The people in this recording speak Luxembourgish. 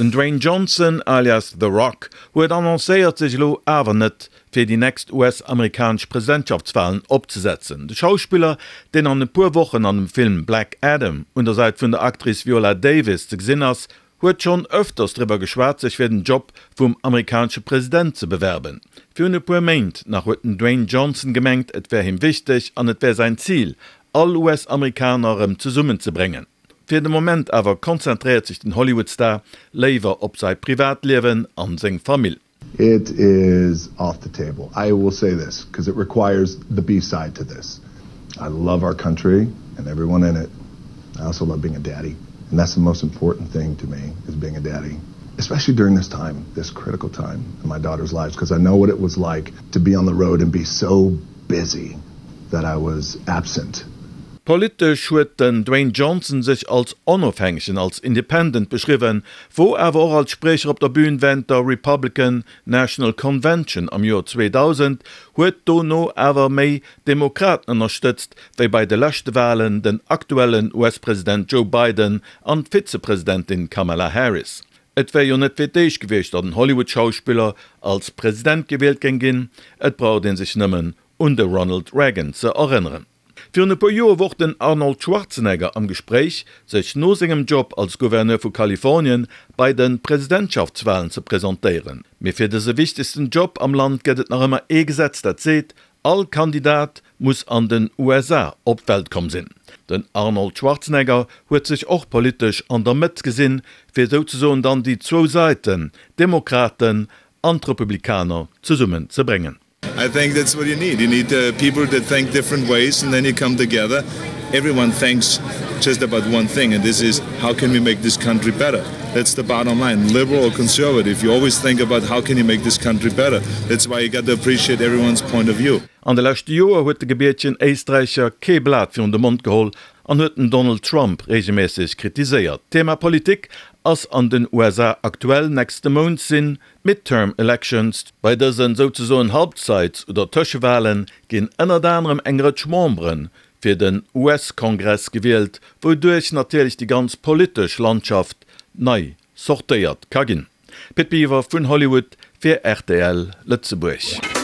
Den Dwayne Johnson alias The Rock huet annoncéiert sech elo awer net fir déi nächst US-amerikanesch Presidentschaftswalen opzesetzen. De Schauspiller, deen an e puer Wochen an dem Film Black Adam un der Säit vun der Actrice Viola Davis ze gesinn ass, huet schonn ëfters driwwer geschwat sech fir den Job vum amerikanesche President ze bewerben. Virun e puer Méint nach huet den Dwayne Johnson gemengt et wär him wichteg an et wär säin Zil all US-Amerikaner erëm zesummen ze bréngen. Fir de Moment awer konzentréiert sech den Hollywood-Star léiwer op säi Privatliewen an seng Famill. It is off the table. I will say this because it requires the B side to this. I love our country and everyone in it. I also love being a daddy and that's the most important thing to me is being a daddy, especially during this time, this critical time in my daughter's lives because I know what it was like to be on the road and be so busy that I was absent. Politesch huet den Dwayne Johnson sech als Onofhängegen, als Independent beschriwwen, wor awer och als Spriecher op der Bühn während der Republican National Convention am Joer 2000, huet dono awer méi d'Demokraten ënnerstëtzt wéi bei de leschte Walen den aktuellen US-President Joe Biden an d'Vizepresidentin Kamala Harris. Et wär jo net fir d'éischt gewiescht, datt en Hollywood-Schauspiller als President gewielt géing ginn, et braucht ee sech nëmmen un de Ronald Reagan ze erënneren. Virun e puer Joer wor den Arnold Schwarzenegger am Gespréich, sech no sengem Job als Gouverneur vu Kalifornien bei de Presidentschaftswalen ze presentéieren. Mee fir dëse wichtegsten Job am Land gëtt et nach ëmmer ee Gesetz, dat seet, all Kandidat muss an den USA op d'Welt komm sinn. Den Arnold Schwarzenegger huet sech och politesch an der Mëtt gesinn, fir souzesoen dann déi zwou Säiten, d'Demokraten an d'Republikaner, zesummen ze bréngen. I think that's what you need. You need uh, people that think different ways and then you come together. Everyone thinks just about one thing and this is how can we make this country better? That's the bottom line. Liberal or conservative, you always think about how can you make this country better. That's why you got to appreciate everyone's point of view. An de leschte Joer huet de gebiertegen Éisträicher kee Blat virun de Mond geholl an huet den Donald Trump reegelméisseg kritiséiert. D'Thema Politik ass an den USA aktuell. Nächste Mount sinn D'Midterm Elections, bei dësen souzesoen Halbzeits oder Tëschewalen ginn ënnert anerem eng Rëtsch Membere fir den US-Kongress gewielt, wouduerch natierlech déi ganz politesch Landschaft nei sortéiert ka ginn. Pit Biwer vun Hollywood fir rtl Lëtzebuerg.